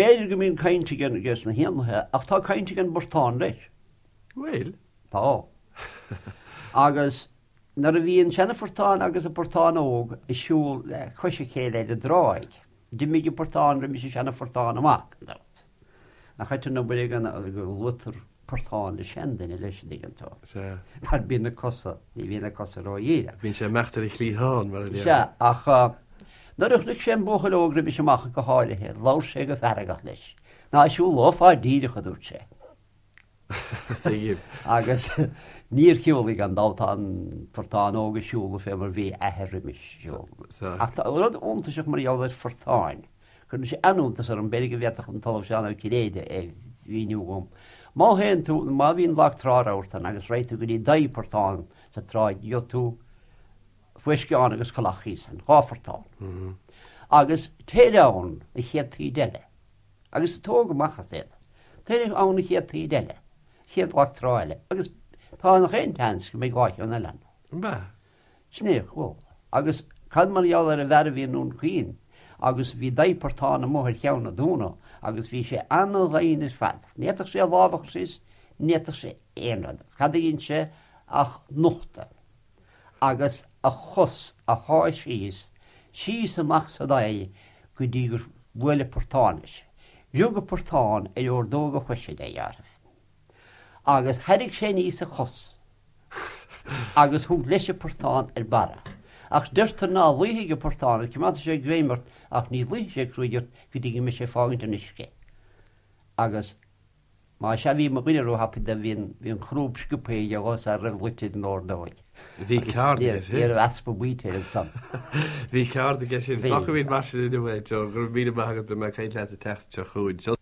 B'fhéidir go mbíonn caint ag ages na héanlaithe ach tá caint ag an bportán leis. Bhfuil? Tá. Agus nuair a bhí an seana-phortán agus an portán óg ag siúl le cois a chéile ar an dtráigh, d'imigh an portán roimis an seana-phortán amach, gan dabht. Nach ait an obair é go luaitear portán le seanduine leis an dtuigeann tú. Sea. Mar bíonn na cosa, ní bhíonn na cosa ródhíreach. Bíonn sé ag imeacht ar a chliathán, mar a déarfá. Sea, ach nuair a chonaic sé an buachaill óg roimis amach go háirithe, labhair sé go feargach leis. Ná siúlófá díreach, a dúirt sé. Tuigim. Agus níor shiúlaigh gan dabht, tá an portán óg ag siúl fé mar bhí a athair roimis ag siúl. Ach tá rud iontaiseach mar gheall ar phortáin. Cuireann sé an-iontas orm, b'fhéidir go bhféadfadh an tOllamh Seán Ó Cinnéide é a mhíniú dhom. Má théann tú, má bhíonn lag trá rabharta ann agus raghaidh tú go dtí daigh portán sa tráigh, gheobhaidh tú fuisceán agus coileach thíos ann, dhá phortán. Agus téir ann an chéad taoide eile, agus tóg amach as iad. Téir ann an chéad taoide eile, chéad lag trá eile, agus tá nach aon tseans go mbeidh dhá cheann eile ann. An ea? Sin é a chuala. Agus cad mar gheall ar an bhfear a bhí i nDún Chaoin agus bhí daigh portán amuigh ar cheann an dúna agus bhí sé ana-dhoimhin ar fad. Ní fhéadfadh sé a lámh a chur síos, ní fhéadfadh sé aon rud. Cad a dhein sé ach nochtadh agus a chos a shá síos, síos amach sa daigh go dtí gur bhuail an portán leis. Rug an portán ar ordóg a choise de, dhealramh. Agus thairrig sé aníos a chos agus thug leis an portán ar barra. Ach deirtear ná luífidh an portán ort, coimeádfaidh sé greim ort ach ní luífidh sé cruaidh ort go dtí go mbeidh sé ag fágaint an uisce. Agus má sea bhí mo dhuine róthapaidh do bhí an, bhí an chrúb sciobtha aige dhó sara raibh luite ar an ordóig. Bhí ceard aige sin. Ní raibh easpa baoite air ansan. Bhí ceard aige sin. Fágfaimid mar sin inniu é, Joe. Go raibh míle maith agat, beidh mé ag caint leat an tseachtain seo chugainn.